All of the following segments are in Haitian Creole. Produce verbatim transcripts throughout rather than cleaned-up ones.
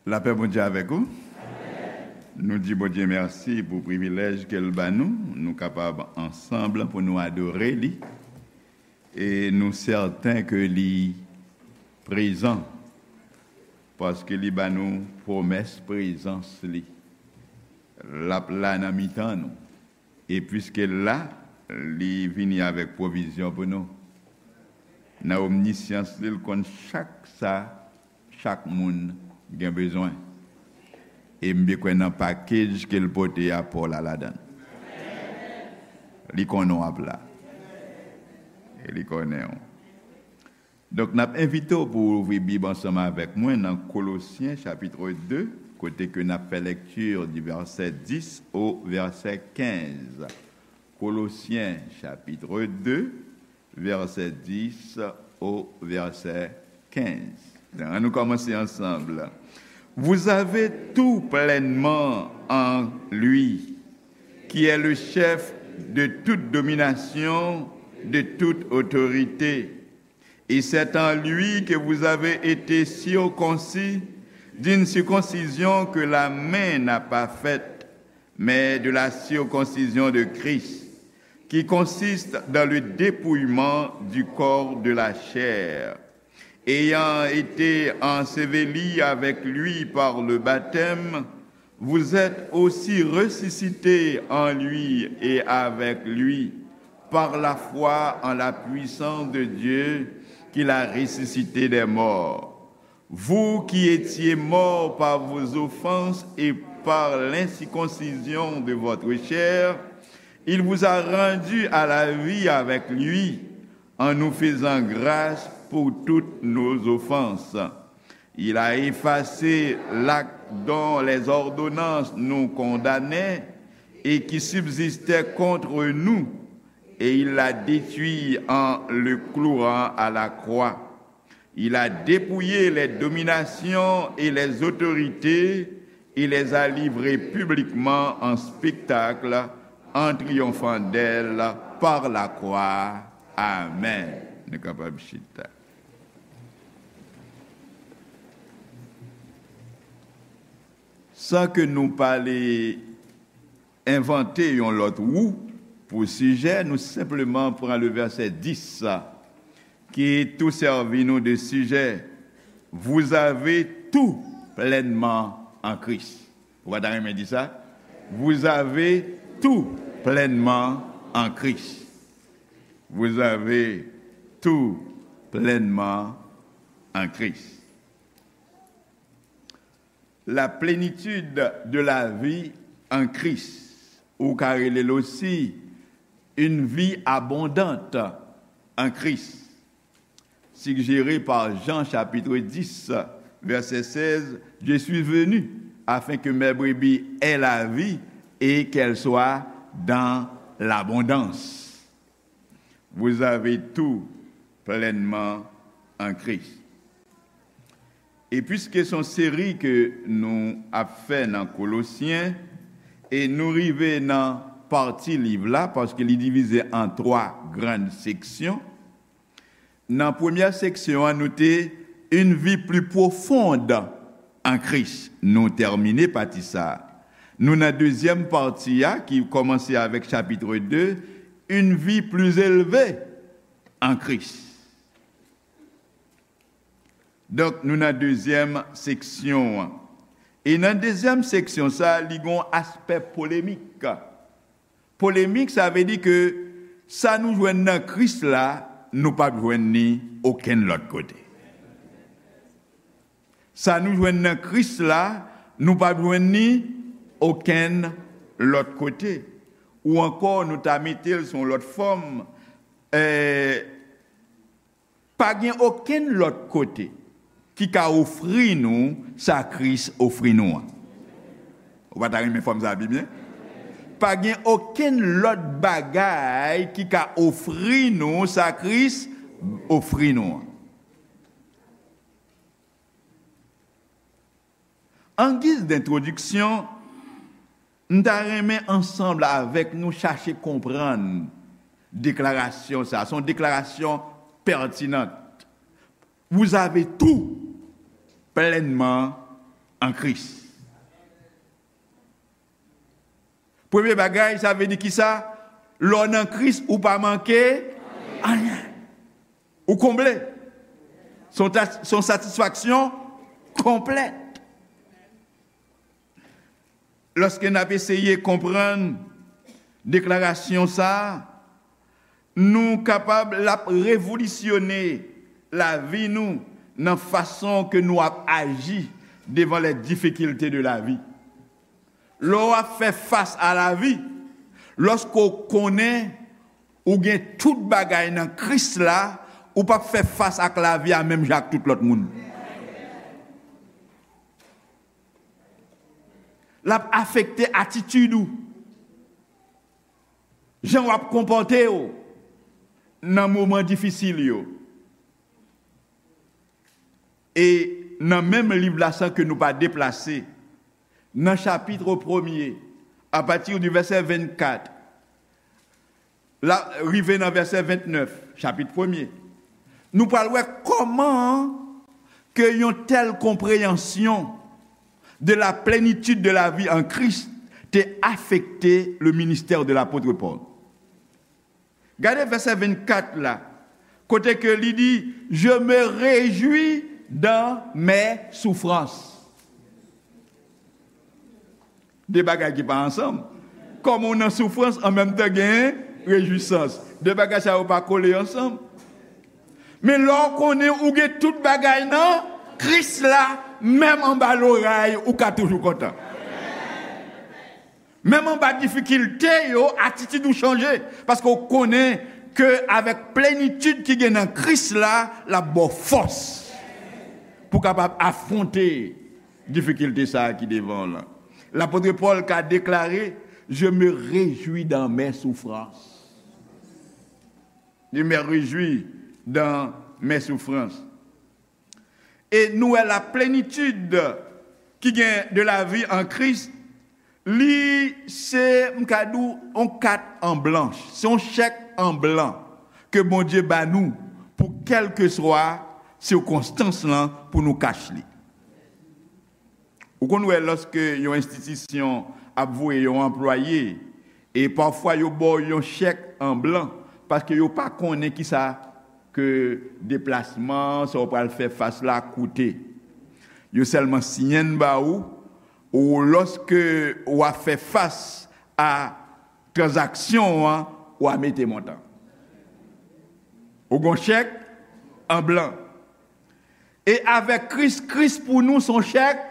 Lapè Bondye avèk ou. Nou di Bondye mèsi pou privilèj ke l ba nou. Nou kapab ansanm pou nou adore li. E nou sèten ke li prezan, paske li ba nou pwomès prezans li. L ap la nan mitan nou. E piske l la, li vini avèk pwovizyon pou nou. Nan omnisyans li, l konn chak sa chak moun gen bezwen. E m byen kwè nan pakej ke l pote a, pa w la ladan l. Li konnen w ap la. E li konnen w. Donk, n ap envite w pou w ouvri Bib ansanm avèk mwen nan Kolosyen chapit de, kote ke n ap fè lekti di vèsè dis o vèsè kenz. Kolosyen chapit de, vèsè dis o vèsè kenz. Ann nou kòmanse ansanm. Vous avez tout pleinement en lui, qui est le chef de toute domination, de toute autorité. Et c'est en lui que vous avez été circoncis d'une circoncision que la main n'a pas faite, mais de la circoncision de Christ, qui consiste dans le dépouillement du corps de la chair. Ayant été ensevelis avec lui par le baptême, vous êtes aussi ressuscités en lui et avec lui, par la foi en la puissance de Dieu qui l'a ressuscité des morts. Vous qui étiez morts par vos offenses et par l'incirconcision de votre chair, il vous a rendus à la vie avec lui, en nous faisant grâce pour toutes nos offenses. Il a effacé l'acte dont les ordonnances nous condamnaient et qui subsistait contre nous, et il l'a détruit en le clouant à la croix. Il a dépouillé les dominations et les autorités et les a livrées publiquement en spectacle en triomphant d'elles par la croix. Amen. Nou kapab chita. San ke nou pale envante yon lòt wou pou sijè, nou senpleman pran le vèsè dis sa, ki tou sèvi nou de sijè. Vous avez tout pleinement en Christ. Ou pa ta renmen di sa? Vous avez tout pleinement en Christ. Vous avez tout pleinement en Christ. La plénitude de la vie en Christ, ou ka rele l osi une vie abondante en Christ, suggérée par Jean chapitre dix, verset seize, Je suis venu afin que mes brebis aient la vie et qu'elle soit dans l'abondance. Vous avez tout pleinement en Christ. E piske se yon seri ke nou ap fè nan Kolosyen, e nou rive nan pati liv la, paske li divize an twa grann seksyon. Nan premyè seksyon an, nou te Une vie plus profonde en Christ. Nou tèmine pati sa a. Nou nan dezyèm pati a, ki kòmanse avèk chapit de, Une vie plus élevée en Christ. Donk, nou nan dezyèm seksyon an. E nan dezyèm seksyon sa a, li gen yon aspè polemik. Polemik, sa vle di ke sa nou jwenn nan Kris la, nou p ap jwenn ni okenn lòt kote. Sa nou jwenn nan Kris la, nou p ap jwenn ni okenn lòt kote. Ou ankò, nou ta mete l sou yon lòt fòm, eh, pa gen okenn lòt kote ki ka ofri nou sa Kris ofri nou an. Ou pa ta renmen fòm sa pi byen? Pa gen okenn lòt bagay ki ka ofri nou sa Kris ofri nou an. An giz dentwodiksyon, m ta renmen ansanm avèk nou chache konprann deklarasyon sa a. Se yon deklarasyon pètinan. Vous avez tout pleinement an Kris. Premye bagay, sa vle di kisa? Lè w nan Kris, ou pa manke anyen. Ou konble. Se yon ta- se yon satisfaksyon konplèt. Lòske n ap eseye konprann deklarasyon sa a, nou kapab l ap revolisyone lavi nou nan fason ke nou ap aji devan les difficultés de la vie. Lè w ap fè fas a lavi, lòske w konnen ou gen tout bagay nan Kris la, ou p ap fè fas ak lavi a menm jan ak tout lòt moun. L ap afekte atitid ou, jan w ap konpòte w nan moman difisil yo. E nan menm liv la, san ke nou pa deplase, nan chapit premye, apati di vèsè vennkat, la, rive nan vèsè vennèf, chapit premye, nou pral wè kòman ke yon tèl konpreyansyon de la plénitude de la vie en Christ te afekte le ministère de l'apôtre Paul. Gade vèsè vennkat la, kote ke li di, je me réjouis dans mes souffrances. De bagay ki pa ansanm. Kòman w nan soufrans, an menm tan gen rejwisans. De bagay sa yo pa kole ansanm. Men lè w konnen ou gen tout bagay nan Kris la, menm anba loray, ou ka toujou kontan. Menm anba difikilte yo, atitid ou chanje. Paske w konnen ke avèk plenitid ki gen nan Kris la, l ap ba w fòs pou w kapab afwonte difikilte sa a ki devan w lan. Lapot Pòl ka deklare, je me réjouis dans mes souffrances. Je me réjouis dans mes souffrances. E nou wè la plenitid ki gen de la vi an Kris, li se, m ka di w, yon kat an blanch, se yon chèk an blan ke Bondye ba nou pou kèlkeswa sikonstans lan pou nou kach li. Ou konn wè lòske yon enstitisyon ap voye yon anplwaye, e pafwa yo ba w yon chèk an blan, paske yo pa konnen kisa ke deplasman, sa w pral fè fas la koute. Yo sèlman siyen l ba ou, ou lòske w ap fè fas a tranzaksyon an, w a mete montan. Ou gon chèk an blan. E avèk Kris, Kris pou nou se yon chèk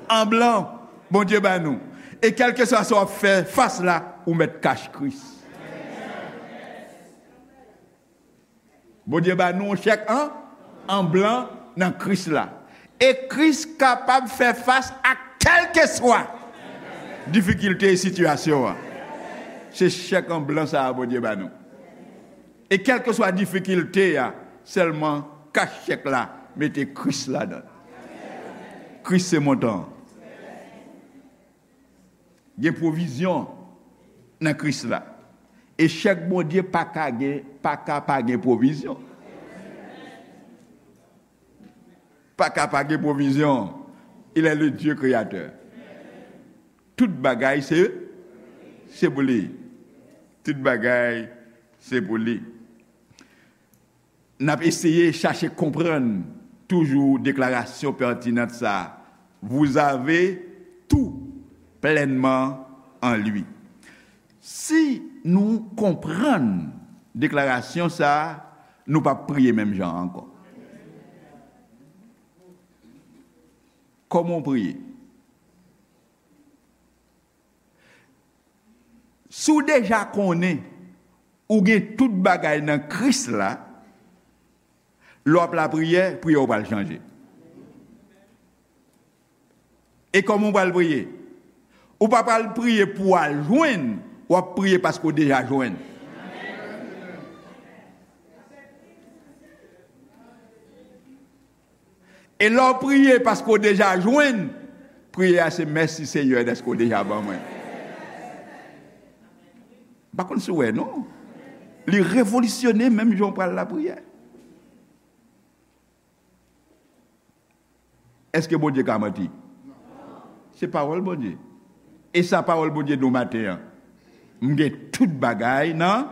an blan Bondye ba nou. E kèlkeswa sa w ap fè fas la, ou mèt kach Kris. Bondye ba nou yon chèk an, an blan nan Kris la. E Kris kapab fè fas a kèlkeswa difikilte e sitiyasyon an. Se chèk an blan sa a Bondye ba nou. E kèlkeswa difikilte a, sèlman kach chèk la, mete Kris ladan l. Kris se montan an. Gen pwovizyon nan Kris la. E chèk Bondye pa ka gen, pa ka pa gen pwovizyon. Pa ka pa gen pwovizyon. Il est le Dieu créateur. Tout bagay se, se pou li. Tout bagay se pou li. N ap eseye chache konprann toujou deklarasyon pètinan sa a. Vous avez tout pleinement en lui. Si nou konprann deklarasyon sa a, nou p ap priye menm jan an ankò. Kòman w priye? Si w deja konnen ou gen tout bagay nan Kris la, lè w ap lapriyè, priyè w pral chanje. E kòman w pral priye? Ou pa pral priye pou w al jwenn, w ap priye paske w deja jwenn. E lè w priye paske w deja jwenn, priyè a se, mèsi Senyè dèske w deja ban mwen. M pa konn si w wè non. Li revolisyone menm jan w pral lapriyè. Èske Bondye ka manti? Se pawòl Bondye. E sa pawòl Bondye di w maten an. M gen tout bagay nan.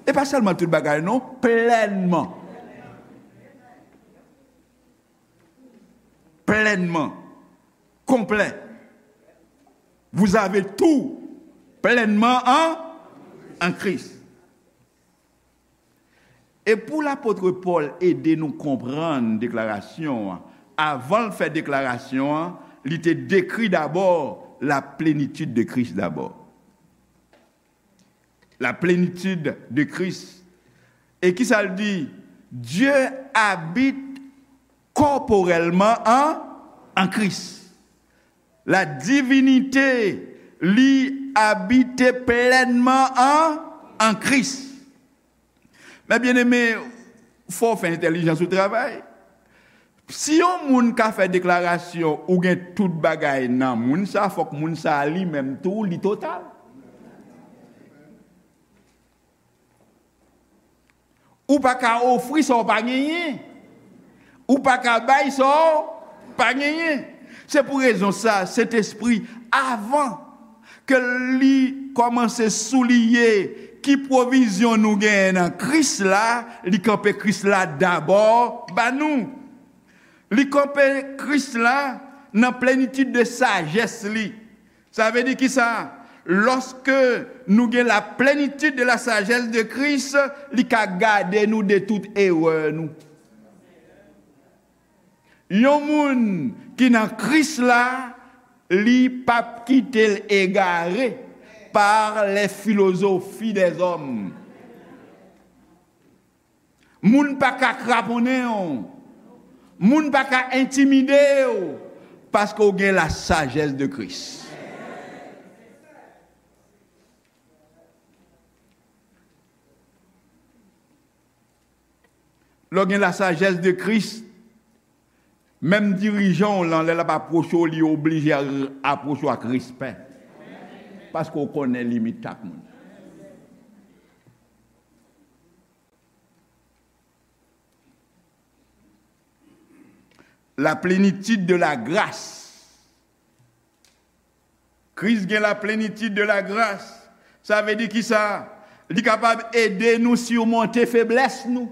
E pa sèlman tout bagay, non, plènman. Plènman. Konplè. Vous avez tout plènman en, en Christ. E pou lapot Pòl ede nou konprann deklarasyon an, avan l fè deklarasyon an, li te dekri dabò la plenitid de Kris dabò. La plenitid de Kris. E kisa l di? Dieu habite corporellement en, en Christ. La divinité, li abite plènman en, en Christ. Men byeneme, fò w fè entèlijans ou travay. Si yon moun ka fè deklarasyon ou gen tout bagay nan moun sa, fòk moun sa li menm tou, li total. Ou pa ka ofri sa w pa genyen. Ou pa ka bay sa w pa genyen. Se pou rezon sa, Sentespri, avan ke li kòmanse souliye ki pwovizyon nou genyen nan Kris la, li kanpe Kris la dabò ba nou. Li kanpe Kris la nan plenitid de sajès li. Sa vle di kisa? Lòske nou gen la plenitid de la sajès de Kris, li ka gade nou de tout erè nou. Yon moun ki nan Kris la, li p ap kite l egare par les philosophies des hommes. Moun pa ka kraponnen w. Moun pa ka entimide w. Paske w gen la sajès de Kris. Lè w gen la sajès de Kris, menm dirijan w lan, lè l ap apwoche w, li oblije apwoche w ak respè. Paske w konnen limit chak moun. La plénitude de la grâce. Kris gen la plénitude de la grâce. Sa vle di kisa? Li kapab ede nou simonte feblès nou.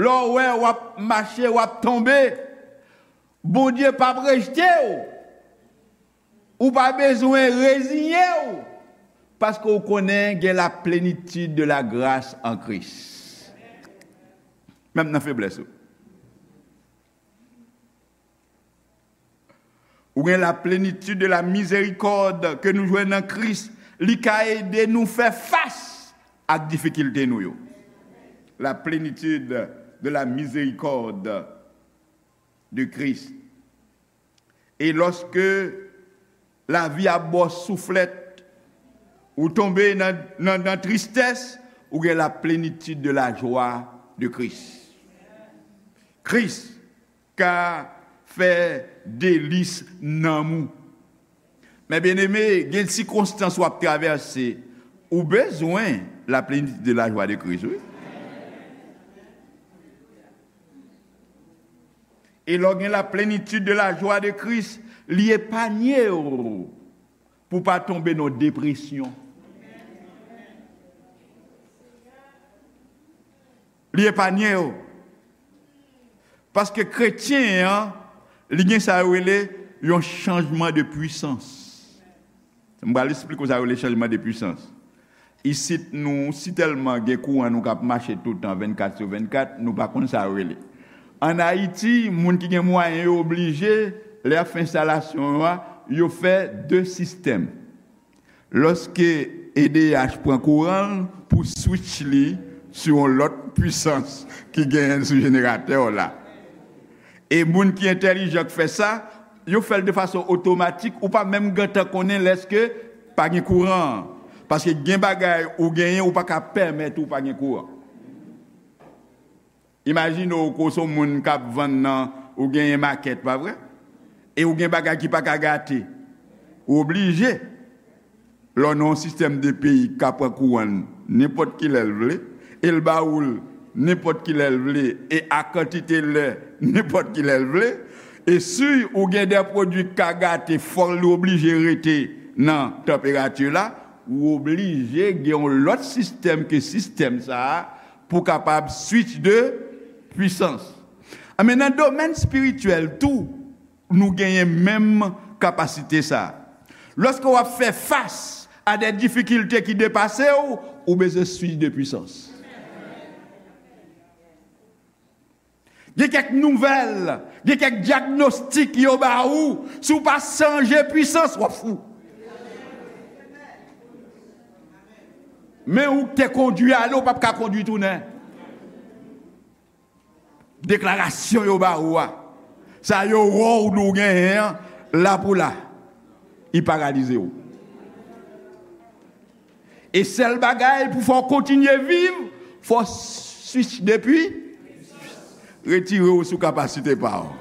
Lè w wè w ap mache, w ap tonbe, Bondye p ap rejte w. Ou pa bezwen reziye w, paske w konnen gen la plénitude de la grâce en Christ. Menm nan feblès ou. Ou gen la plénitude de la miséricorde ke nou jwenn nan Kris, li ka ede nou fè fas ak difikilte nou yo. La plénitude de la miséricorde de Christ. E lòske lavi ap ba w souflèt, ou tonbe nan, nan, nan tristès, ou gen la plénitude de la joie de Christ. Kris ka fè delis nanm ou. Men byeneme, gen sikonstans w ap travèse, ou bezwen la plénitude de la joie de Christ, wi. E lè w gen la plénitude de la joie de Christ, li epanye w pou w pa tonbe nan depresyon. Li epanye w. Paske kretyen an, li gen sa yo rele yon chanjman de pwisans. M pral esplike w sa yo rele chanjman de pwisans. Isit nou, si tèlman gen kouran nou k ap mache toutan vennkat sou vennkat, nou pa konn sa yo rele. Ann Ayiti, moun ki gen mwayen yo oblije, lè y ap fè enstalasyon yo a, yo fè de sistèm. Lòske E D H pran kouran l pou switch li sou yon lòt pwisans ki genyen sou jeneratè w la. E moun ki entèlijan k fè sa, yo fè l de fason otomatik, ou pa menm gentan konnen lèske pa gen kouran an. Paske gen bagay ou genyen, ou pa ka pèmèt ou pa gen kouran. Imajine w ke w se yon moun k ap vann nan, ou genyen makèt, pa vre? E ou gen bagay ki pa ka gate. Ou oblije. Lè w nan yon sistèm de peyi k ka pran kouran l nenpòt kilè l vle, e l ba ou l nenpòt kilè l vle e a kantite lè nenpòt kilè l vle. E si ou gen de pwodui k ka gate, fò l oblije rete nan tanperati la, ou oblije gen yon lòt sistèm ke sistèm sa a pou w kapab switch de pwisans. Men nan domèn espirityèl tou, nou genyen menm kapasite sa a. Lòske w ap fè fas a de difikilte ki depase w, ou bezwen switch de pwisans. Gen kèk nouvèl, gen kèk dyagnostik yo ba ou, si w pa chanje pwisans, w ap fou. Men ou k te kondui ale, ou p ap ka kondui tounen. Deklarasyon yo ba ou a, sa yo wè w nou genyen an, la pou la, li paralize w. E sèl bagay pou fè w kontinye viv, fò w switch depi, retire w sou kapasite pa w.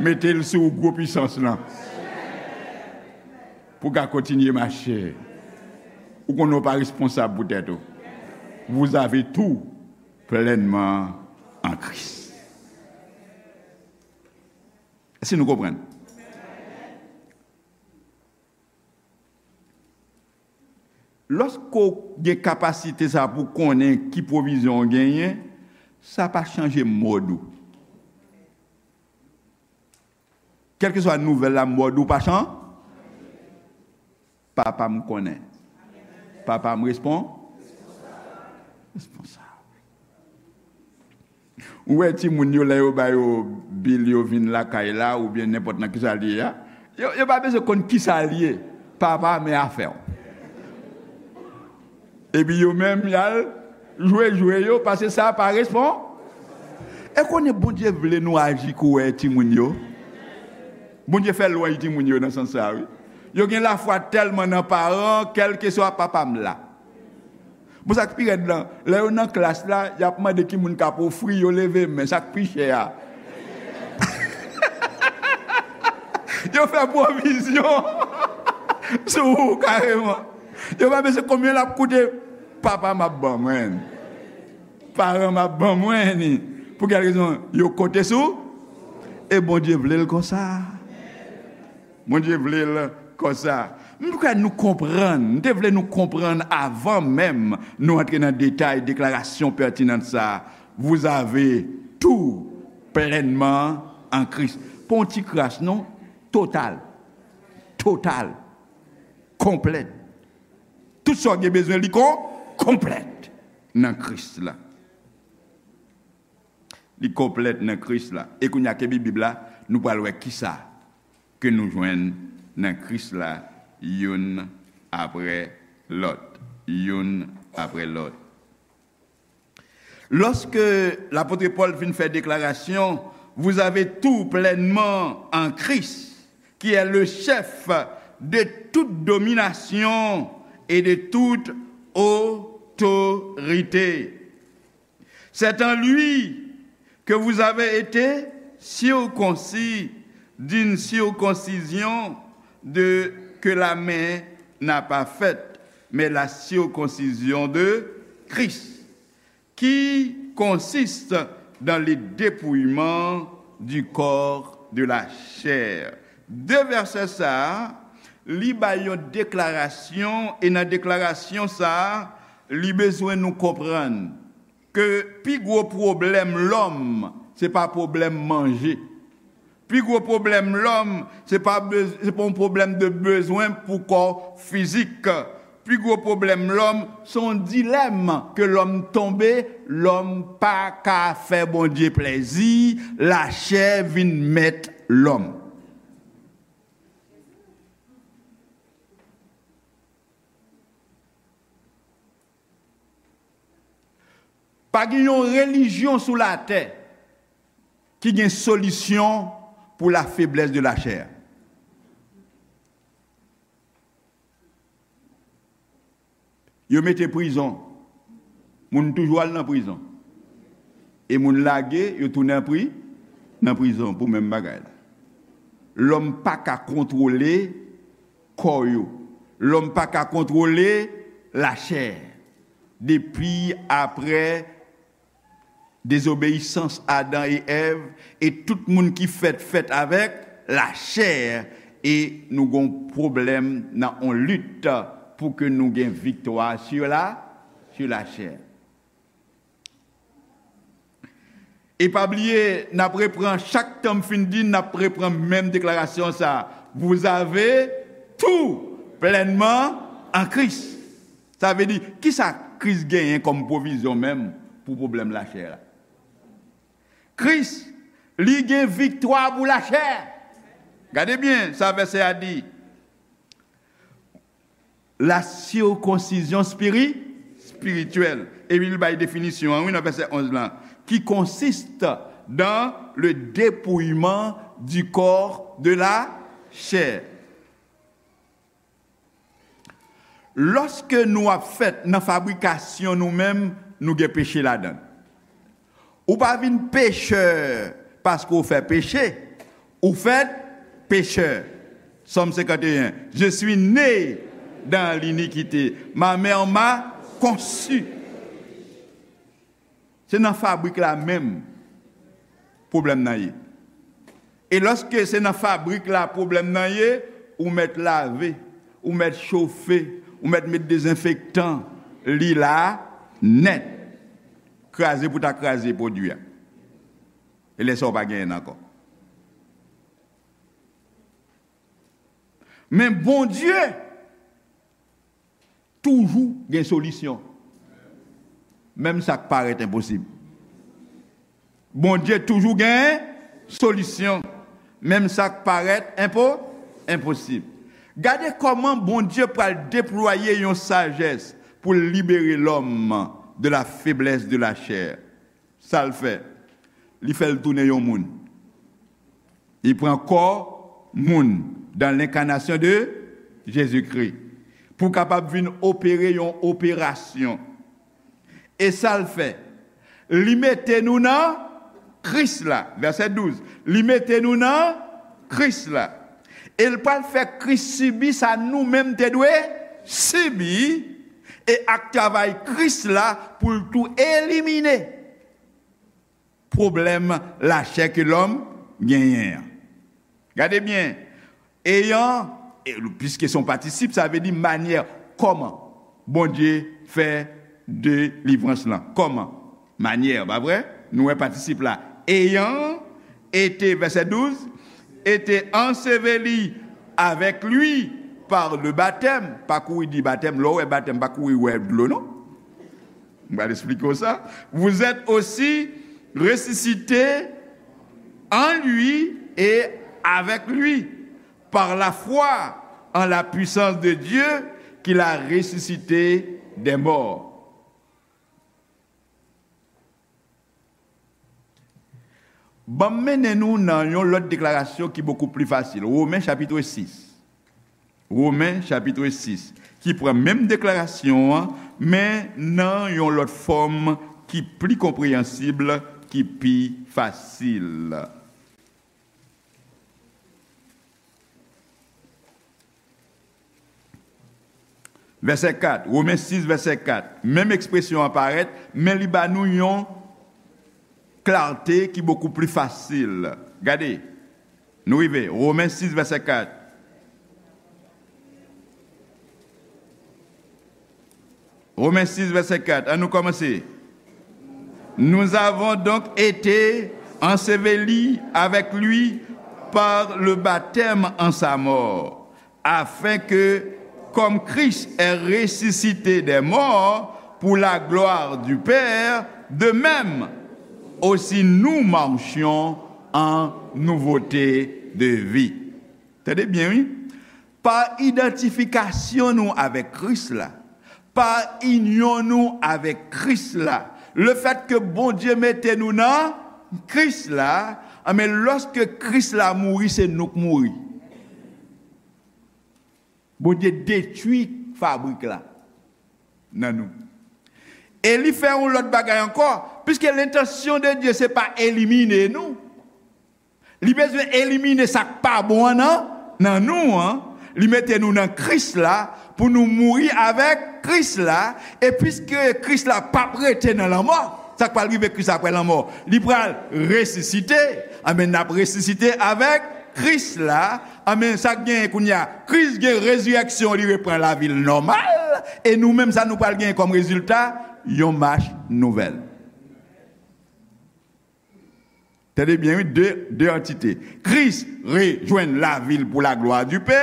Mete l sou gwo pwisans lan. Pou w ka kontinye mache. Ou konnen w pa responsab pou tèt ou. Vous avez tout pleinement en Christ. Èske nou konprann? Lòske w gen kapasite sa pou konnen ki pwovizyon w genyen, sa pa chanje mòd ou. Kèlkeswa nouvèl la, mòd ou pa chan-, Papa m konnen. Papa m respon-, responsab. Ou wè timoun yo, lè yo ba yo bil, yo vin lakay la, oubyen nenpòt nan kisa l ye a, yo, yo pa bezwen konn kisa l ye. Papa, men afè w. Epi yo menm, y al jwe jwe yo, paske sa pa respon-, e konnen Bondye vle nou aji kouwè timoun yo. Bondye fè lwanj timoun yo nan sans sa, wi. Yo gen lafwa tèlman nan paran, kèlkeswa papa m la. Bon, sa k pi rèd lan, lè yo nan klas la, y ap mande ki moun k ap ofri, yo leve men, sa k pi chè a. Yo fè pwovizyon sou ou kareman. Yo pa bezwen konbyen l ap koute, papa m ap ban mwen. Paran m ap ban mwen li. Pou kèl rezon? Yo konte sou, e Bondye vle l konsa. Bondye vle l konsa. M kwè nou konprann. M te vle nou konprann avan menm nou antre nan detay deklarasyon pètinan sa a. Vous avez tout pleinement en Christ. Pa yon ti kras, non. Total. Total. Konplèt. Tout sa w gen bezwen, li kon-, konplèt nan Kris la. Li konplèt nan Kris la. E kounye a, kenbe Bib la, nou pral wè kisa ke nou jwenn nan Kris la, youn apre lòt, youn apre lòt. Lorsque l'apôtre Paul fin fè deklarasyon, vous avez tout pleinement en Christ, qui est le chef de toute domination et de toute autorité. C'est en lui que vous avez été circoncis d'une circoncision de, que la main n'a pas faite, mais la circoncision de Christ, qui consiste dans le dépouillement du corps de la chair. De vèsè sa a, li bay yon deklarasyon, e nan deklarasyon sa a, li bezwen nou konprann ke pi gwo pwoblèm lòm, se pa pwoblèm manje. Pi gwo pwoblèm lòm, se pa bez-, se pa yon pwoblèm de bezwen pou kò fizik. Pi gwo pwoblèm lòm, se yon dilèm ke lòm tonbe, lòm pa ka fè Bondye plèzi, lachè vin mèt lòm. Pa gen yon relijyon sou latè ki gen solisyon pou la faiblesse de la chair. Yo mete prizon, moun toujou al nan prizon. E moun lage, yo tounen pri-, nan prizon pou menm bagay la. Lòm pa ka kontwole kò yo. Lòm pa ka kontwole lachè. Depi apre Dezobeyisans Adan e Èv, e tout moun ki fèt, fèt avèk lachè, e nou gon pwoblèm nan on lit pou ke nou gen viktwa sur la, sur la chair. E pa bliye, n ap repran, chak tan m fin di, n ap repran menm deklarasyon sa. Vous avez tout pleinement en Christ. Sa vle di, kisa Kris genyen kòm pwovizyon menm pou pwoblèm lachè la? Kris, li gen viktwa pou lachè. Gade byen sa vèsè a di. La circoncision spiri-, spirituelle. Epi li bay definisyon an, wi, nan vèsè onz lan, qui consiste dans le dépouillement du corps de la chair. Lòske nou ap fèt nan fabrikasyon nou menm, nou gen peche ladan l. Ou pa vin pechè paske w fè peche, ou fèt pechè. Sòm senkanteyen, Je suis né dans l'iniquité, ma mère m'a conçu. Se nan fabrik la menm pwoblèm nan ye. E lòske se nan fabrik la pwoblèm nan ye, ou mèt lave, ou mèt chofe, ou mèt met dezenfektan, li la nèt. Kraze pou ta kraze pwodui a. E lè sa w pa genyen l ankò. Men Bondye toujou gen solisyon. Menm sa k parèt enposib. Bondye toujou gen solisyon. Menm sa k parèt enpo-, enposib. Gade kòman Bondye pral deplwaye yon sajès pou l libere lòm de la faiblesse de la chair. Sa l fè? Li fè l tounen yon moun. Li pran kò moun dans l'incarnation de Jésus-Christ pou kapab vin opere yon operasyon. E sa l fè? Li mete nou nan Kris la. Vèsè douz. Li mete nou nan Kris la. E l pral fè Kris sibi sa nou menm te dwe sibi. E ak travay Kris la pou l tou elimine pwoblèm lachè ke lòm genyen an. Gade byen, eyan, e, piske se yon patisip, sa vle di manyè kòman Bondye fè delivrans lan. Kòman? Manyè, pa vre? Nou wè patisip la. Ayant été, vèsè douz, été enseveli avec lui par le baptême. Pa kouri di batèm, lè w wè batèm, pa kouri wè dlo, non. M pral eksplike w sa. Vous êtes aussi ressuscités en lui et avec lui, par la foi en la puissance de Dieu qui l'a ressuscité des morts. Ban m mennen nou nan yon lòt deklarasyon ki bokou pli fasil. Women chapit sis. Women chapit sis, ki pran menm deklarasyon an, men nan yon lòt fòm ki pli konpreyansib, ki pi fasil. Vèsè kat, Women sis, vèsè kat. Menm ekspresyon an parèt, men li ba nou yon klarte ki bokou pli fasil. Gade, nou rive, Women sis, vèsè kat. Women sis, vèsè kat. An nou kòmanse. Nous avons donc été ensevelis avec lui par le baptême en sa mort, afin que, comme Christ est ressuscité des morts pour la gloire du Père, de même aussi nous marchions en nouveauté de vie. Tande byen, wi. Pa idantifikasyon nou avèk Kris la, pa inyon nou avèk Kris la, lefètke Bondye mete nou nan Kris la, anben, lòske Kris la mouri, se nou k mouri. Bondye detwi fabrik la nan nou. E li fè yon lòt bagay ankò, piske lentansyon de Dye se pa elimine nou. Li bezwen elimine sa k pa bon an nan, nan nou an. Li mete nou nan Kris la pou nou mouri avèk Kris la. E piske Kris la p ap rete nan lanmò, Sa k pral rive Kris apre lanmò? Li pral resisite. Anben, n ap resisite avèk Kris la. Anben, sa k genyen kounye a? Kris gen rezirèksyon, li repran lavi l nòmal. E nou menm, sa nou pral genyen kòm rezilta? Yon mach nouvèl. Tande byen, wi, de, de antite. Kris rejwenn lavi l pou la glwa di Pè,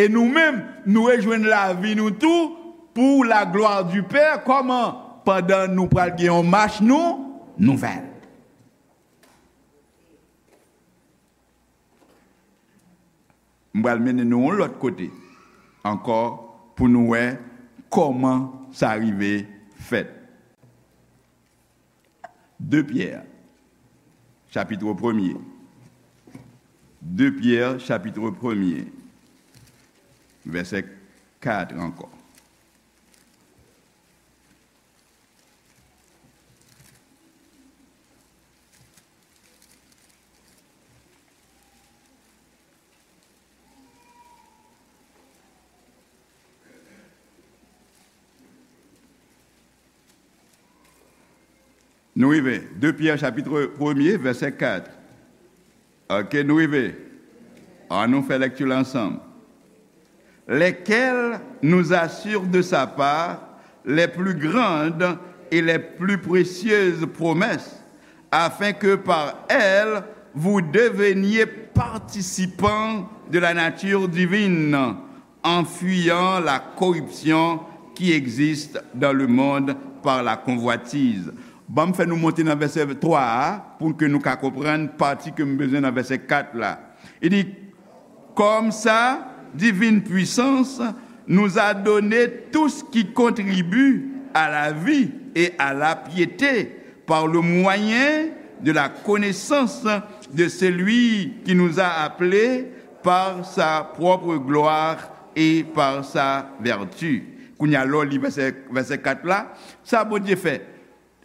e nou menm, nou rejwenn lavi nou tou pou la glwa di Pè. Kòman? Pandan nou pral gen yon mach nou, nouvèl. M pral mennen nou yon lòt kote ankò pou nou wè kòman sa rive fèt. De Pyè, chapit premye. De Pyè, chapit premye, vèsè kat ankò. Nou rive. De Pyè, chapit premye, vèsè kat. Oke, nou rive. Ann nou fè lèkti la ansanm. Lesquels nous assurent de sa part les plus grandes et les plus précieuses promesses, afin que par elles vous deveniez participants de la nature divine, en fuyant la corruption qui existe dans le monde par la convoitise. Ban m fè nou monte nan vèsè twa a pou ke nou ka konprann pati ke m bezwen nan vèsè kat la. Li di, comme sa divine puissance nous a donné tout ce qui contribue à la vie et à la piété par le moyen de la connaissance de celui qui nous a appelés par sa propre gloire et par sa vertu. Kounye a, lè w li vèsè, vèsè kat la, sa Bondye fè?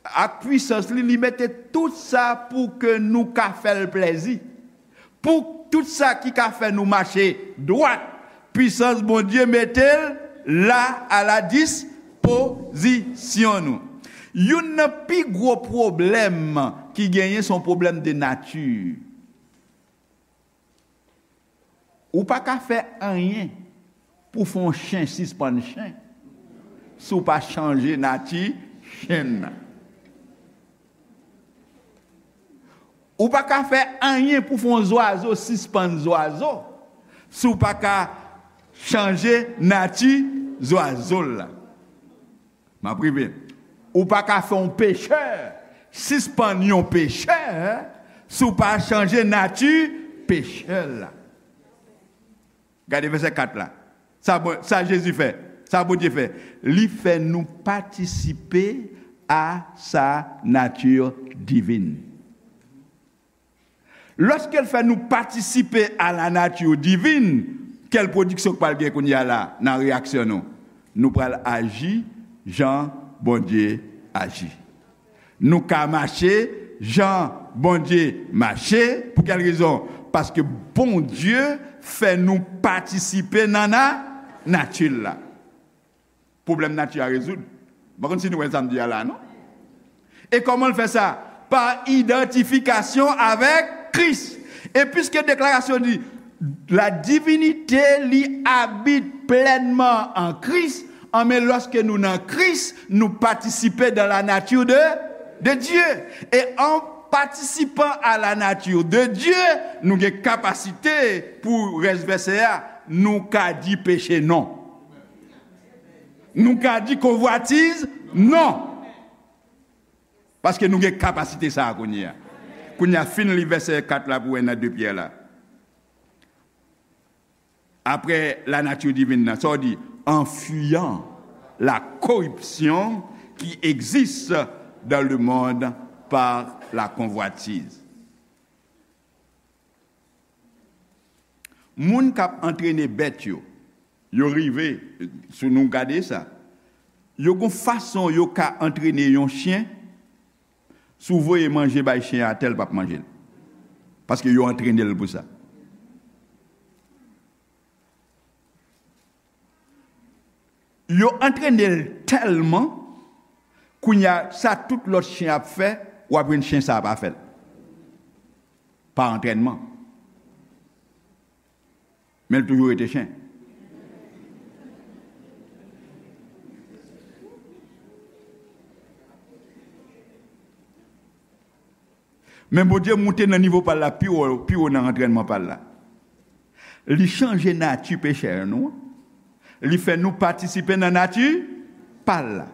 Ak pwisans li, li mete tout sa pou ke nou ka fè l plèzi. Pou tout sa ki ka fè nou mache dwat, pwisans Bondye mete l la a la dispozisyon nou. Youn nan pi gwo pwoblèm ki genyen, se yon pwoblèm de nati. Ou pa ka fè anyen pou fè yon chen sispann chen si w pa chanje nati chen nan. Ou pa ka fè anyen pou fè yon zwazo sispann zwazo si w pa ka chanje nati zwazo l la. M ap rive. Ou pa ka fè yon pechè sispann yon pechè si w pa chanje nati pechè l la. Gade vèsè kat la. Sa, bon, sa Jezi fè, sa Bondye fè, li fè nou patisipe a sa nati divin. Lòske l fè nou patisipe a la nati divin, kèl pwodiksyon k pral gen kounye a la nan reyaksyon nou? Nou pral aji jan Bondye aji. Nou ka mache jan Bondye mache. Pou kèl rezon? Paske Bondye fè nou patisipe nan na-, nati l la. Pwoblèm nati a rezoud. M pa konn si nou wè sa m di a la, non? E kòman l fè sa? Pa idantifikasyon avèk Kris. E piske deklarasyon di, la divinite li abite plenman an Kris, anben lòske nou nan Kris, nou patisipe dans la nature de, de Dieu. E an patisipan a la nature de Dieu, nou gen kapasite, pou rès vèsè a, nou ka di peche non. Nou ka di konvwatiz non. Paske nou gen kapasite sa a kounye a. Kounye a, fin li vèsè kat la pou wè nan de Pyè la. Après la nature divine nan, sa w di? En fuyant la corruption qui existe dans le monde par la convoitise. Moun k ap antrene bèt yo, yo rive, si nou gade sa, yo gon fason yo ka antrene yon chen, si w voye manje bay chen an atè, l p ap manje l. Paske yo antrene l pou sa. Yo antrene l tèlman Kounye a, sa tout lòt chen ap fè, w ap jwenn chen sa a pa fè l. Pa antrènman. Men l toujou rete chen. Men Bondye moute nan nivo pa l la pi wo, pi wo nan antrènman pa l la. Li chanje nati pechè nou an. Li fè nou patisipe nan nati pa l la.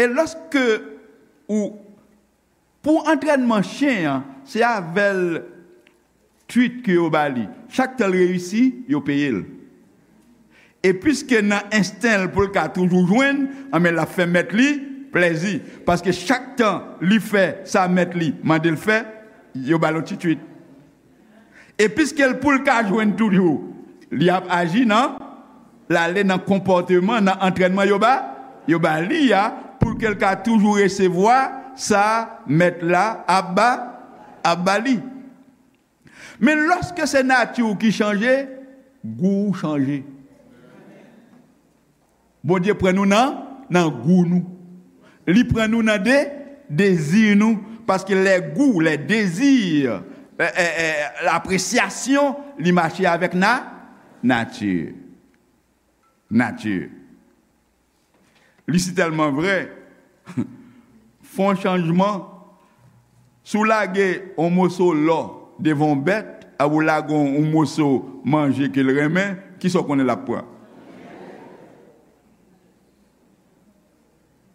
E lòske ou, pou antrènman chen an, se avè l treat ke yo ba li. Chak tan l reyisi, yo peye l. E piske nan ensten l pou l ka toujou jwenn, anben l ap fè mèt li plèzi. Paske chak tan li fè sa mèt li mande l fè, yo ba l yon ti treat. E piske l pou l ka jwenn toujou, li ap aji nan, l ale nan konpòteman, nan antrènman yo ba, yo ba li a, pou ke l ka toujou resevwa sa mèt la ap ba, ap ba li. Men lòske se nati w ki chanje, gou w chanje. Bondye pran nou nan, nan gou nou. Li pran nou nan de, dezi nou. Paske les goûts, les désirs, eh, eh, eh, l'appréciation, li mache avèk na, nati. Nati. Li si tèlman vrè. Fè yon chanjman. Si w lage yon moso lò devan yon bèt, ak ou lage yon, yon moso manje ke l renmen, kisa w konnen l ap pran?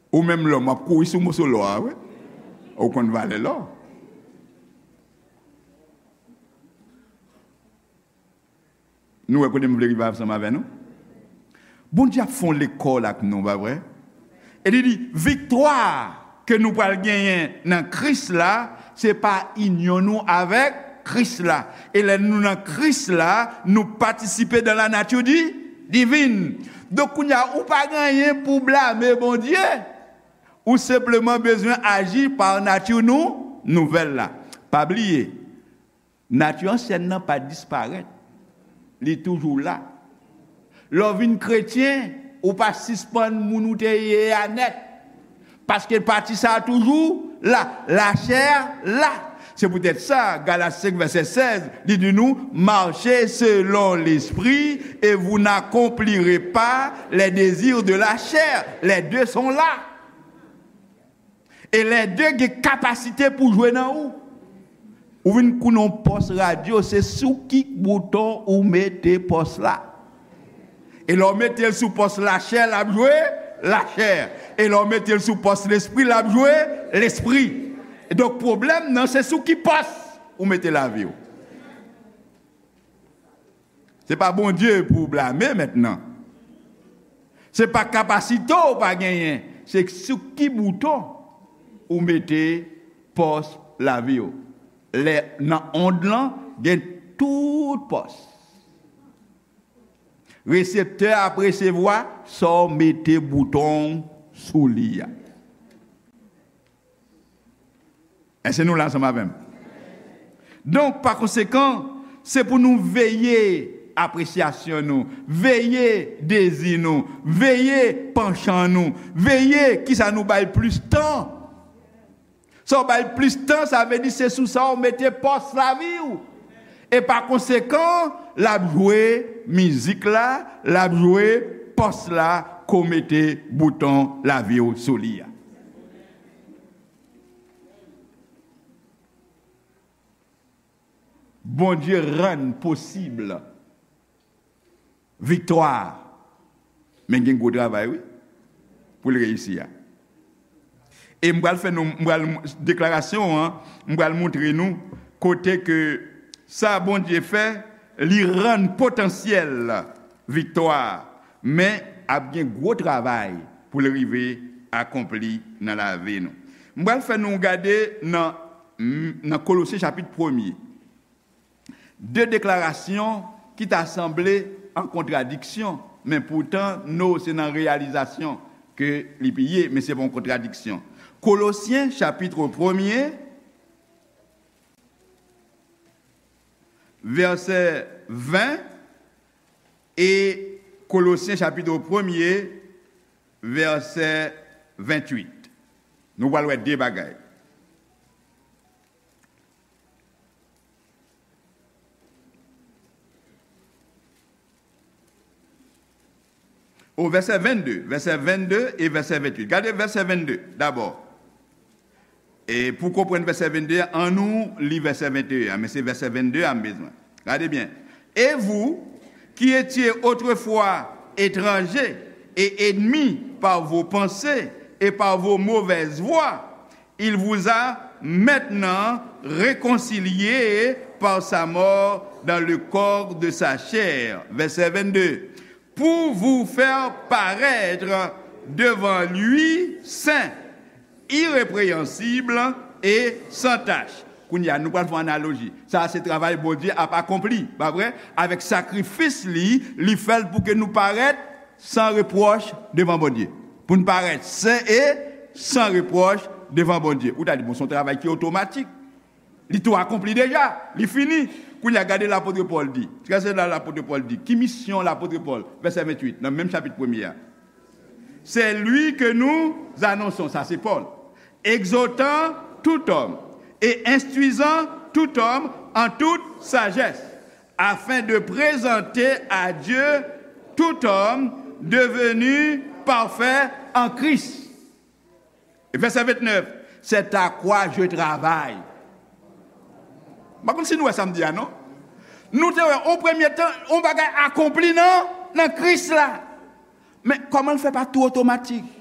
Ou menm lòm, w ap kouri sou moso lò a, wi. Ou konn valè lò. Nou wè kote m vle rive ansanm avè nou? Bondye ap fè yon lekòl ak nou, pa vre? E li di, viktwa ke nou pral genyen nan Kris la, se pa inyon nou avèk Kris la. E lè nou nan Kris la, nou patisipe dans la nature di, divine. Donk, kounye a, ou pa gen anyen pou w blame Bondye. Ou senpleman bezwen aji pa nati nou nouvèl la. Pa bliye, nati ansyèn nan pa disparèt. Li toujou la. Lè w vin kretyen, ou pa sispann moun ou te ye a nèt. Paske pati sa a toujou la, lachè la. Se poutèt sa, Galat senk vèsè sèz, li di nou, marchez selon l'esprit et vous n'accomplirez pas les désirs de la chair. Les deux sont là. E lè de gen kapasite pou jwe nan ou. Ou vin konnen yon pòs radyo, se sou ki bouton ou mete pòs la. E lè w mete l sou pòs lachè, l ap jwe lachè. E lè w mete l sou pòs lespri, l ap jwe lespri. Donk, pwoblèm nan, se sou ki pòs ou mete lavi w. Se pa Bondye pou w blame mentnan. Se pa kapasite w pa genyen. Se sou ki bouton ou mete pòs lavi w. Lè nan ond lan, gen tout pòs. Reseptè ap resevwa sa w mete bouton w sou li a. Èske nou la ansanm avè m? Donk, pa konsekan, se pou nou veye apresyasyon nou, veye dezi nou, veye panchan nou, veye kisa nou bay plis tan. Sa w bay plis tan, sa vle di se sou sa w mete pòs lavi w. E pa konsekan, l ap jwe mizik la, l ap jwe pòs la ke w mete bouton lavi w sou li a. Bondye rann posib viktwa. Men gen gwo travay, wi, pou l reyisi a. E m pral fè nou, m pral, deklarasyon an, m pral montre nou kote ke sa Bondye fè, li rann potansyèl viktwa, men ap gen gwo travay pou l rive akonpli nan lavi nou. M pral fè nou gade nan, nan Kolosyen chapit premye. De deklarasyon ki ta sanble an kontradiksyon, men poutan, no, se nan reyalizasyon ke li ye, men se pa yon kontradiksyon. Kolosyen, chapit premye, vèsè ven, e Kolosyen, chapit premye, vèsè venntuit. Nou pral wè de bagay. O vèsè vennde, vèsè vennde e vèsè venntuit. Gade vèsè vennde dabò. E pou konprann vèsè vennde a, annou li vèsè venteyen an, men se vèsè vennde a m bezwen. Gade byen. Et vous, qui étiez autrefois étrangers et ennemis par vos pensées et par vos mauvaises voies, il vous a maintenant réconciliés par sa mort dans le corps de sa chair. Vèsè vennde. Pour vous faire paraître devant lui saint, irrépréhensible et sans tache. Kounye a, nou pral fè yon analoji. Sa a se travay Bondye ap akonpli, pa vre? Avèk sakrifis li, li fè l pou ke nou parèt san repwòch devan Bondye. Pou n parèt sen e san repwòch devan Bondye. Ou ta di, bon, se yon travay ki otomatik. Li tou akonpli deja. Li fini. Kounye a, gade lapot Pòl di. Gade sa lapot Pòl di. Ki misyon lapot Pòl? Vèsè venntuit, nan menm chapit premye a. C'est lui que nous annonçons, sa se Pòl, exhortant tout homme et instruisant tout homme en toute sagesse, afin de présenter à Dieu tout homme devenu parfait en Christ. Vèsè vennèf, c'est à quoi je travaille. M pa konn si nou wè sa m di a, non? Nou te wè, o premye tan, yon bagay akonpli nan, nan Kris la. Men kòman l fè pa tou otomatik?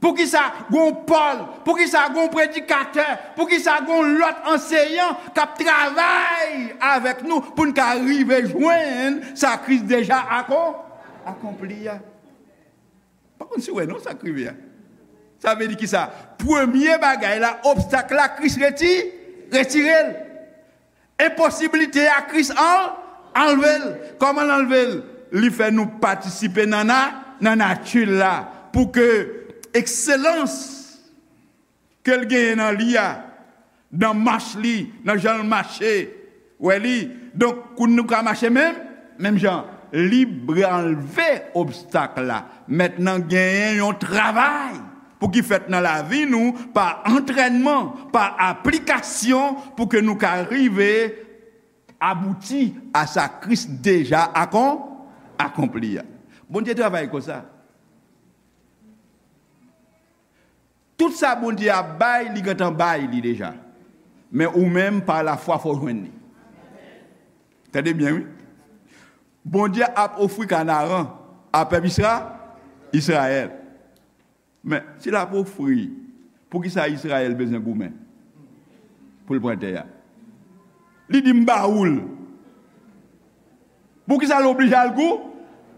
Poukisa gon Pòl? Poukisa gon predikatè? Poukisa gon lòt anseyan k ap travay avèk nou pou n ka rive jwenn sa Kris deja akon-, akonpli a? Pa konn si w wè non sa k rive a. Sa vle di kisa? Premye bagay la, obstak la, Kris reti-, retire l. Enposiblite a, Kris an-, anlve l. Kòman l anlve l? Li fè nou patisipe nan na-, nan nati l la, pou ke ekselans ke l genyen nan li a, nan mach li, nan jan l mache. Wè li. Donk, kou nou ka mache menm, menm jan, li anlve obstak la. Mentnan genyen yon travay pou ki fèt nan lavi nou pa antrènman, pa aplikasyon, pou ke nou ka rive abouti a sa Kris deja akon-, akonpli a. Bondye travay konsa. Tout sa Bondye ap bay, li gentan bay li deja. Men ou menm, pa lafwa, fò w jwenn li. Tande byen, wi. Bondye ap ofri Kanaran a pèp Isra-, Izrayèl. Men, si l ap ofri, poukisa Izrayèl bezwen goumen pou l pran tè a? Li di, "M ba ou l." Poukisa l oblije al gou-,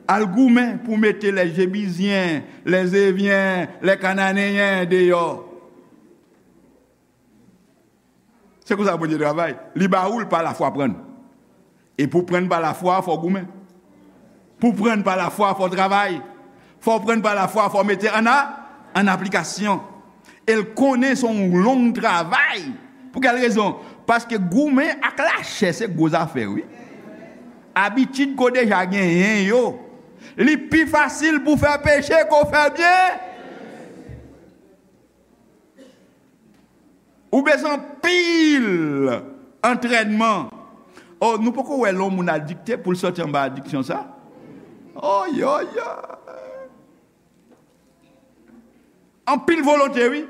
al goumen pou mete lè Jebizyen, lè Zevyen, lè Kananeyen deyò? Se konsa Bondye travay. Li ba ou l pa lafwa, pran. E pou pran pa lafwa, fò w goumen. Pou pran pa lafwa, fò w travay. Fò w pran pa lafwa, fò w mete an a-, an aplikasyon. E l konnen se yon long travay. Pou kèl rezon? Paske goumen ak lachè se gwo zafè, wi. Abitid ke w deja genyen yo, li pi fasil pou w fè peche ke w fè byen. Ou bezwen anpil antrènman. O, nou poko wè lè yon moun adikte pou l sòti anba adiksyon sa? O, yo, yo. Anpil volonte, wi.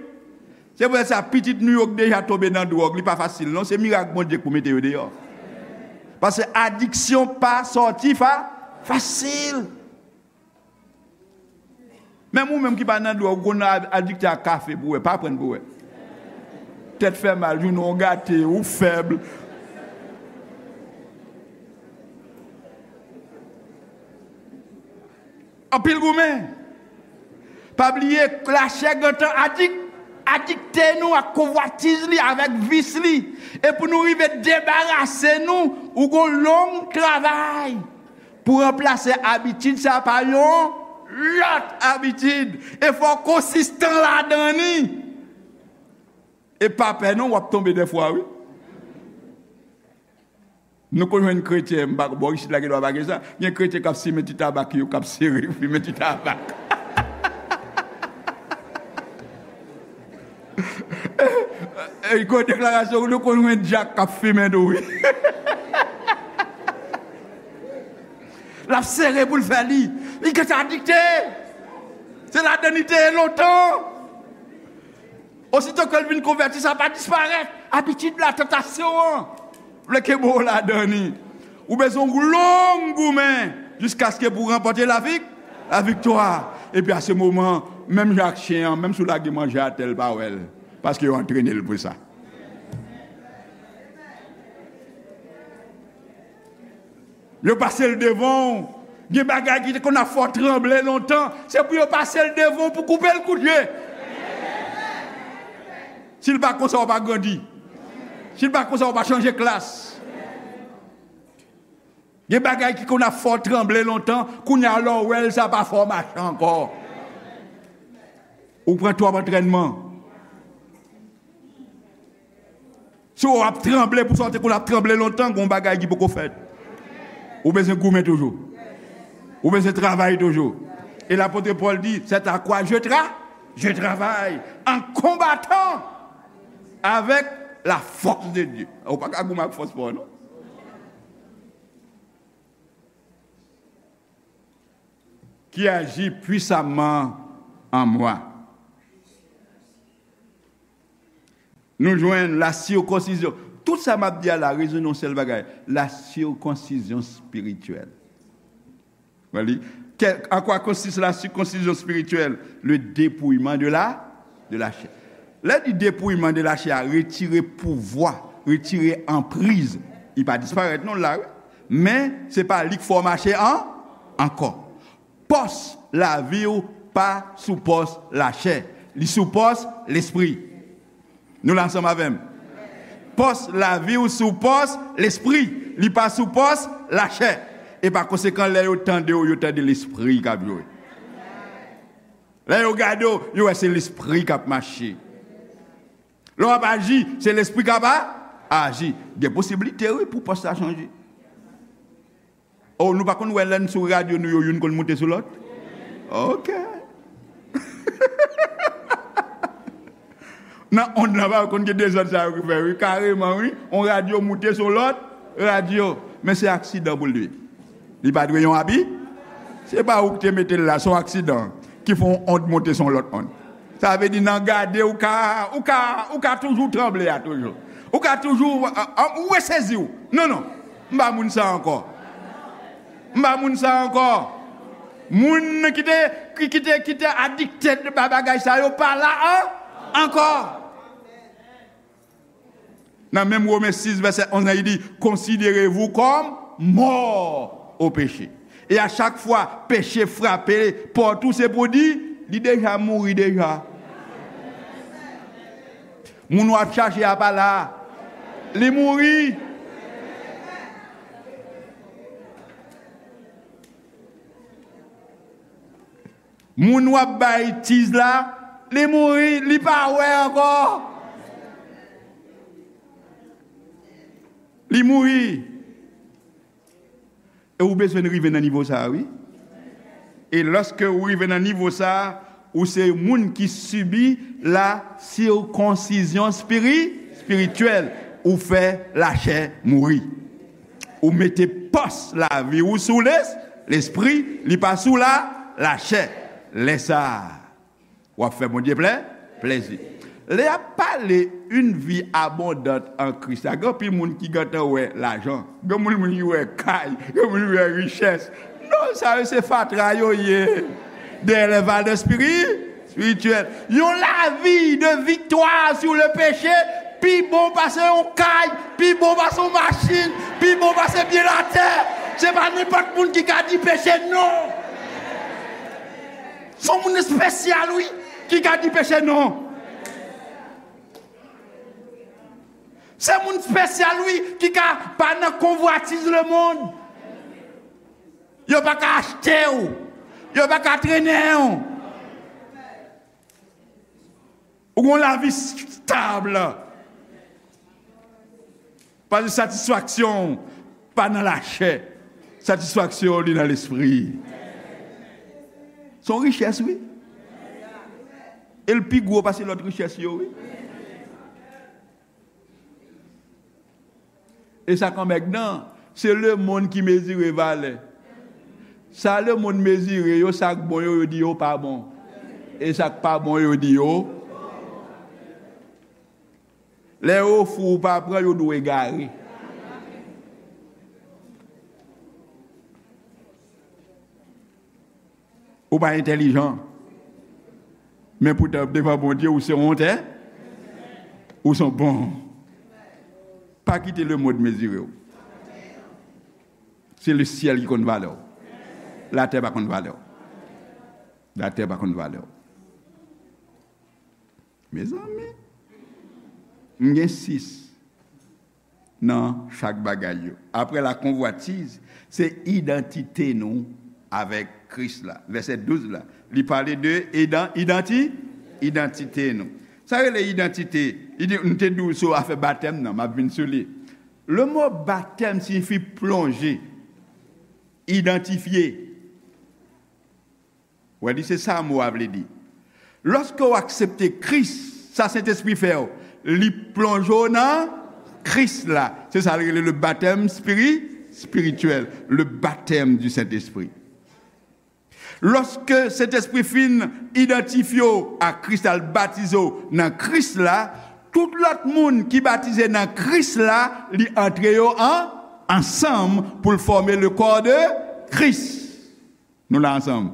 Se pou sa, pitit nou yo k deja tonbe nan dwòg, li pa fasil, non. Se mirak Bondye k pou mete yo deyò. Paske adiksyon pa sòti fa-, fasil. Menm ou menm ki pa nan dwòg, ou konn a-, adikte a kafe pou wè, pa pran pou wè. Tèt fè mal, jounen w gate, ou fèb. Anpil goumen. Pa bliye, lachè gentan adik-, adikte nou ak konvwatiz li, avèk vis li. E pou nou rive debarase nou, ou gon long travay. Pou ranplase abitid sa pa yon lòt abitid. E fò w konsistan ladan li. E pa pè non, w ap tonbe dèfwa, wi. Nou konn jwenn kretyen, m pa, bò isit la, gen dwa pa gen sa. Gen kretyen k ap simen ti tabak yo, k ap sere, fimen ti tabak. Gwo deklarasyon, nou konn wè dyak k ap fimen tou, wi. L ap sere pou l fè li. Li gentan adikte. Se ladan li te ye lontan. Osito ke l vin konvèti, sa pa disparèt. Abitid la, tantasyon an, vle kenbe w ladan li. Ou bezwen yon long goumen jiskaske pou ranpòte lavik, laviktwa. Epi a se moman, menm jan ak chen an, menm si w lage manje atè, l pa wè l. Paske yo antrene l pou sa. Yo pase l devan w. Gen bagay ki te konn ap fè w tranble lontan, se pou yo pase l devan w pou koupe l kout je. Si l pa konsa, w pa grandi. Si l pa konsa, w pa chanje klas. Gen bagay ki konn ap fè w tranble lontan, kounye a lè w wè l, sa pa fè w mache ankò. Ou pran twòp antrènman. Si w ap tranble pou sa w te konn ap tranble lontan, gen yon bagay ki poko fèt. Ou bezwen goumen toujou. Ou bezwen travay toujou. E lapot Pòl di, c'est à quoi je tra, je travaille en combattant avec la force de Dieu. Ou pa ka goumen ak fòs pa w, non. Qui agit puissamment en moi. Nou jwenn la circoncision. Tout sa m ap di a la rezone yon sèl bagay, la circoncision spirituelle. Wè li. Quel- à quoi consiste la circoncision spirituelle? Le dépouillement de la, de la chair. Lè di dépouillement de la chair, retire pouvwa, retire anpriz. Li pa disparèt non la, wi. Men se pa li k fè w mache an, ankò. Pòs lavi w pa sou pòs lachè. Li sou pòs lespri. Nou la ansanm avè m? Pòs lavi w sou pòs lespri. Li pa sou pòs lachè. E pa konsekan, lè yo tande w, yo tande lespri k ap jwe. Lè yo gade w, yo wè se lespri k ap mache. Lè w ap aji, se lespri k ap a- aji. Gen posiblite, wi, pou pòs la chanje. Oh, nou pa konn wè lè n sou radyo nou yo, youn konn moute sou lòt? Ok. Nan ond lan, pa konn gen dezòd sa yo ki fè, wi, kareman, wi. On radyo moute sou lòt radyo. Men se aksidan pou l ye. Li pa dwe yon abi. Se pa ou ki te mete l la, se yon aksidan ki fè yon ond moute sou yon lòt ond. Sa vle di nan gade, ou ka, ou ka, ou ka toujou tranble a toujou. Ou ka toujou, a, a, ou resezi w. Non, non. M pa moun sa ankò. M pa moun sa ankò. Moun ki te, ki, ki te, ki te adikte ba bagay sa yo pa la an, ankò. Nan menm Women sis, vèsè onz lan, li di, considérez-vous comme morts au péché. E a chak fwa peche frape pòt ou, se pou di, li deja mouri deja. Moun w ap chache a pa la. Li mouri. Moun w ap bay tiz la, li mouri, li pa wè ankò. Li mouri. E ou bezwen rive nan nivo sa a, wi. E lòske ou rive nan nivo sa a, ou se moun ki sibi la sikonsizyon spiri-, espirityèl. Ou fè lachè mouri. Ou mete pòs lavi ou sou les-, lespri, li pa sou la, lachè. Lè sa a, w ap fè Bondye plè-, plèzi. Lè y ap pale une vie abondante en Christ la, gen anpil moun ki gentan wè lajan, gen moun, moun ki wè kay, gen moun ki wè richès. Non, sa yo se fatra yo ye. Dèyè lè valè spiri-, espirityèl. Yon lavi de viktwa sou le peche pi bon pase yon kay, pi bon pase yon machin, pi bon pase byen latè. Se pa nenpòt moun ki ka di peche non. Se yon moun espesyal, wi, ki ka di peche non. Se moun espesyal, wi, ki ka pa nan konvwatiz lemonn. Yo pa ka achte w. Yo pa ka trennen w. Ou gon lavi stab. Paske satisfaksyon w pa nan lachè. Satisfaksyon w li nan lespri. Se yon richès, wi. E l pi gwo pase lòt richès yo, wi. E sa k anmègdan, se lemonn ki mezire valè. Sa lemonn mezire yo, sa k bon yo, yo di yo pa bon. E sa k pa bon yo, yo di yo. Lè yo ofri w, ou pa pran, yo di w egare. Ou pa entèlijan. Men poutan, devan Bondye, ou se yon ontè. Ou se yon bon. Pa kite lemonn mezire w. Se lesyèl ki konn valè w. Latè pa konn valè w. Latè pa konn valè w. Mezanmi, m gen sis nan chak bagay yo. Apre la convoitise, se idantite nou avèk Kris la. Vèsè douz la, li pale de idan, idanti, idantite nou. Sa rele idantite. Li di, m te di w sou afè batèm nan, m ap vin sou li. Le mo batèm siyifi plonje, idantifye. Ou wè, li se sa mo a vle di. Lòske w aksepte Kris, sa Sentespri fè w, li plonje w nan Kris la. Se sa l rele le baptême spiri-, spirituel, le baptême du Saint-Esprit. Lòske Sentespri fin idantifye w a Kris la, l batize w nan Kris la, tout lòt moun ki batize nan Kris la, li antre yo an, ansanm pou l fòme le corps de Christ. Nou la ansanm.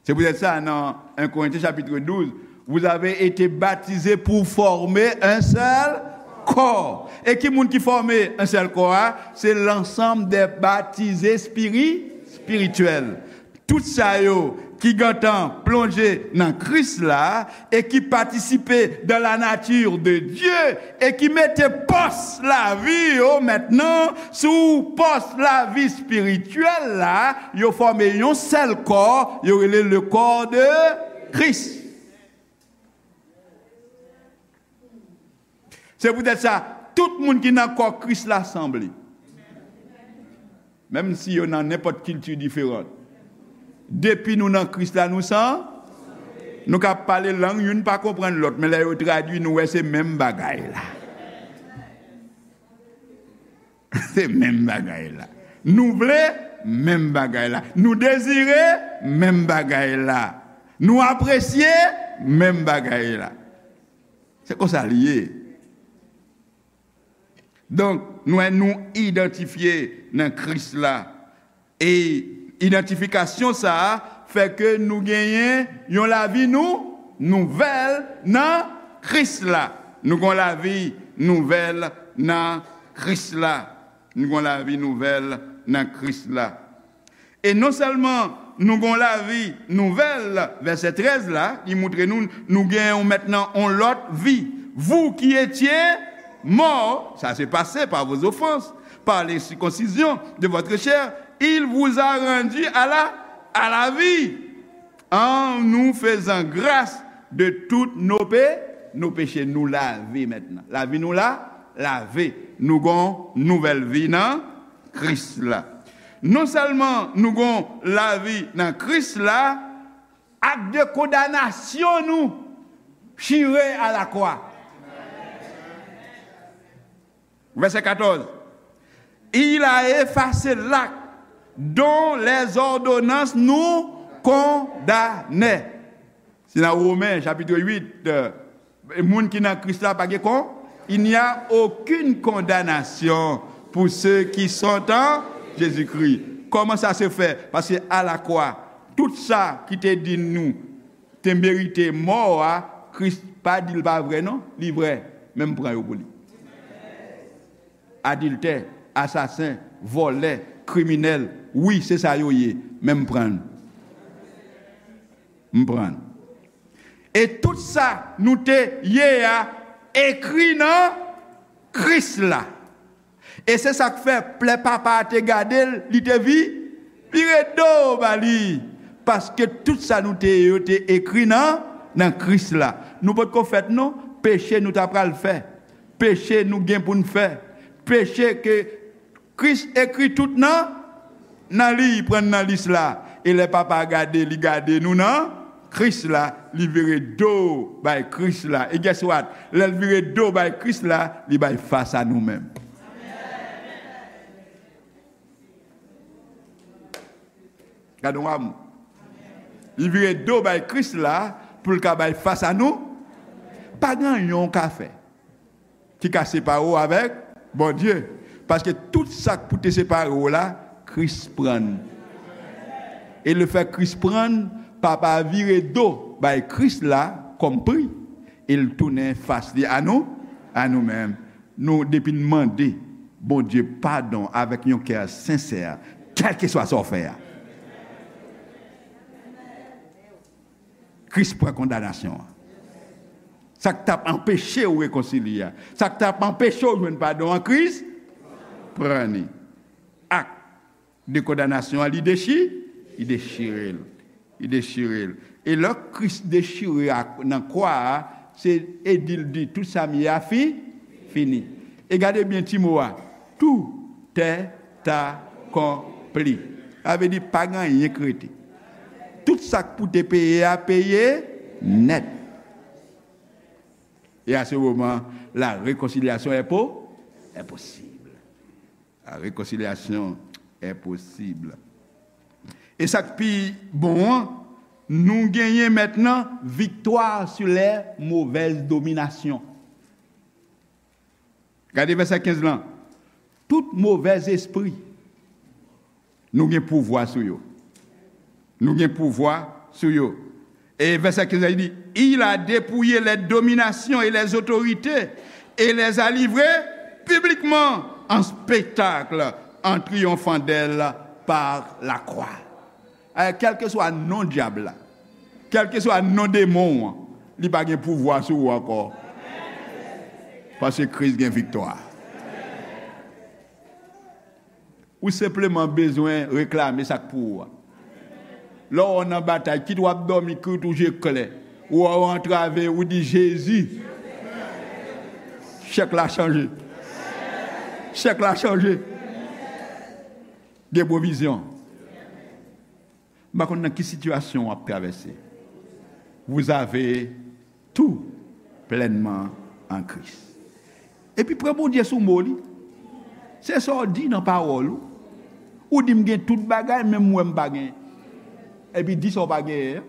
Se poutèt sa, nan un Corinthiens chapitre douze, vous avez été baptisés pour former un seul corps. E ki moun ki fòme un seul corps a? Se l'ensemble des baptisés spiri-, spirituels. Tout sa yo ki gentan plonje nan Kris la e ki patisipe dans la nature de Dieu e ki mete pòs lavi yo mentnan sou pòs lavi espirityèl la, yo fòme yon sèl kò, yo rele le corps de Christ. Se poutèt sa, tout moun ki nan kò Kris la sanble. Menm si yo nan nenpòt kilti diferan. Depi nou nan Kris la, nou san, nou ka pale lang, youn pa konprann lòt, men lè yo tradui, nou wè se menm bagay la. Se menm bagay la. Nou vle menm bagay la. Nou dezire menm bagay la. Nou apresye menm bagay la. Se konsa li ye. Donk, nou, nou idantifye nan Kris la. E idantifikasyon sa a fè ke nou genyen yon lavi nou, nouvèl nan Kris la. Nou gon lavi nouvèl nan Kris la. Nou gon lavi nouvèl nan Kris la. E non sèlman nou gon lavi nouvèl, vèsè trèz la, li montre nou, nou gen yon mentnan yon lòt vi. Vous qui étiez morts, ça s'est passé par vos offenses, par l'incirconcision de votre chair, il vous a rendu à la, à la vie, en nous faisant grâce de toutes nos pé-, nos péchés. Nou lave mentnan. Lavi nou la, lave. Nou gon nouvèl vi nan Kris la. Non sèlman nou gon lavi nan Kris la, ak de kondanasyon nou chire a la kwa. Vèsè katòz. Il a effacé l'acte dont les ordonnances nous condamnaient. Se nan Women, chapit uit, euh, moun ki nan Kris la pa gen kon, il n'y a aucune condamnation pour ceux qui sont en Jésus-Christ. Kòman sa se fè? Paske a la kwa, tout sa ki te di nou te merite mò a, Kris pa di l pa vrè non, li vrè, men m pran yo pou li. Adiltè, asasen, vòlè, kriminèl, wi, se sa yo ye, men m pran. M pran. E tout sa nou te ye a ekri nan Kris la. E se sa k fè lè Papa a te gade l, li te vi-, vire do ba li. Paske tout sa nou te ye yo te ekri nan, nan Kris la. Nou potko fèt non, peche nou ta pral fè. Peche nou gen pou n fè. Peche ke Kris ekri tout nan, nan li, pran nan lis la. E lè Papa a gade, li gade nou nan Kris la, li vire do bay Kris la. E guess what? Lè l vire do bay Kris la, li bay fas a nou menm. Gade yon amou. Li vire do bay Kris la pou l ka bay fas a nou. Pa gen anyen w ka fè ki ka separe w avèk Bondye. Paske tout sa k pou te separe w la, Kris pran l. E lefèt Kris pran l, Papa a vire do bay Kris la kòm pri, e l tounen fas li a nou, a nou menm. Nou, depi n mande Bondye padon avèk yon kè sensè, kèlkeswa sa w fè a. Kris pran kondanasyon an. Sa k t ap anpeche w rekonsilye a, sa k t ap anpeche w jwenn padon an, Kris pran li. Ak de kondanasyon an, li dechi, li dechire l. Li dechire l. E lè Kris dechire ak, nan kwa a, se, e di l di, tout sa m ye a fi, fini. E gade byen ti mo a, tout est accompli. Sa vle di, pa gen anyen k rete. Tout sa k pou te peye a, peye nèt. E a se moman, la rekonsilyasyon est po, est possible. La réconciliation est possible. E sa k pi bon an, nou genyen mentnan viktwa sur les mauvaises dominations. Gade vèsè kenz lan. Tout movèz espri, nou gen pouvwa sou yo. Nou gen pouvwa sou yo. E vèsè kenz la, li di, il a dépouillé les dominations et les autorités et les a livrées publiquement en spectacle en triomphant d'elles par la croix. Eh, kèlkeswa non dyab la, kèlkeswa non demon an, li pa gen pouvwa sou ou ankò. Paske Kris gen viktwa. Ou senpleman bezwen reklame sa k pou ou a. Lè w nan batay, kit w ap dòmi, kit ou je klè, ou wè w antrave, ou di, Jezi, chèk la chanje. Chèk la chanje. Gen pwovizyon. M pa konn nan ki sitiyasyon w ap travèse. Vous avez tout pleinement en Christ. Epi pran Bondye sou mo li. Se sa w di nan pawòl ou. Ou di, "M gen tout bagay, men m wè m pa genyen." Epi di sa w pa genyen an.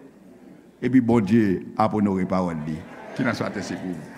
Epi Bondye ap onore pawòl li. Ki nan swa te sekou.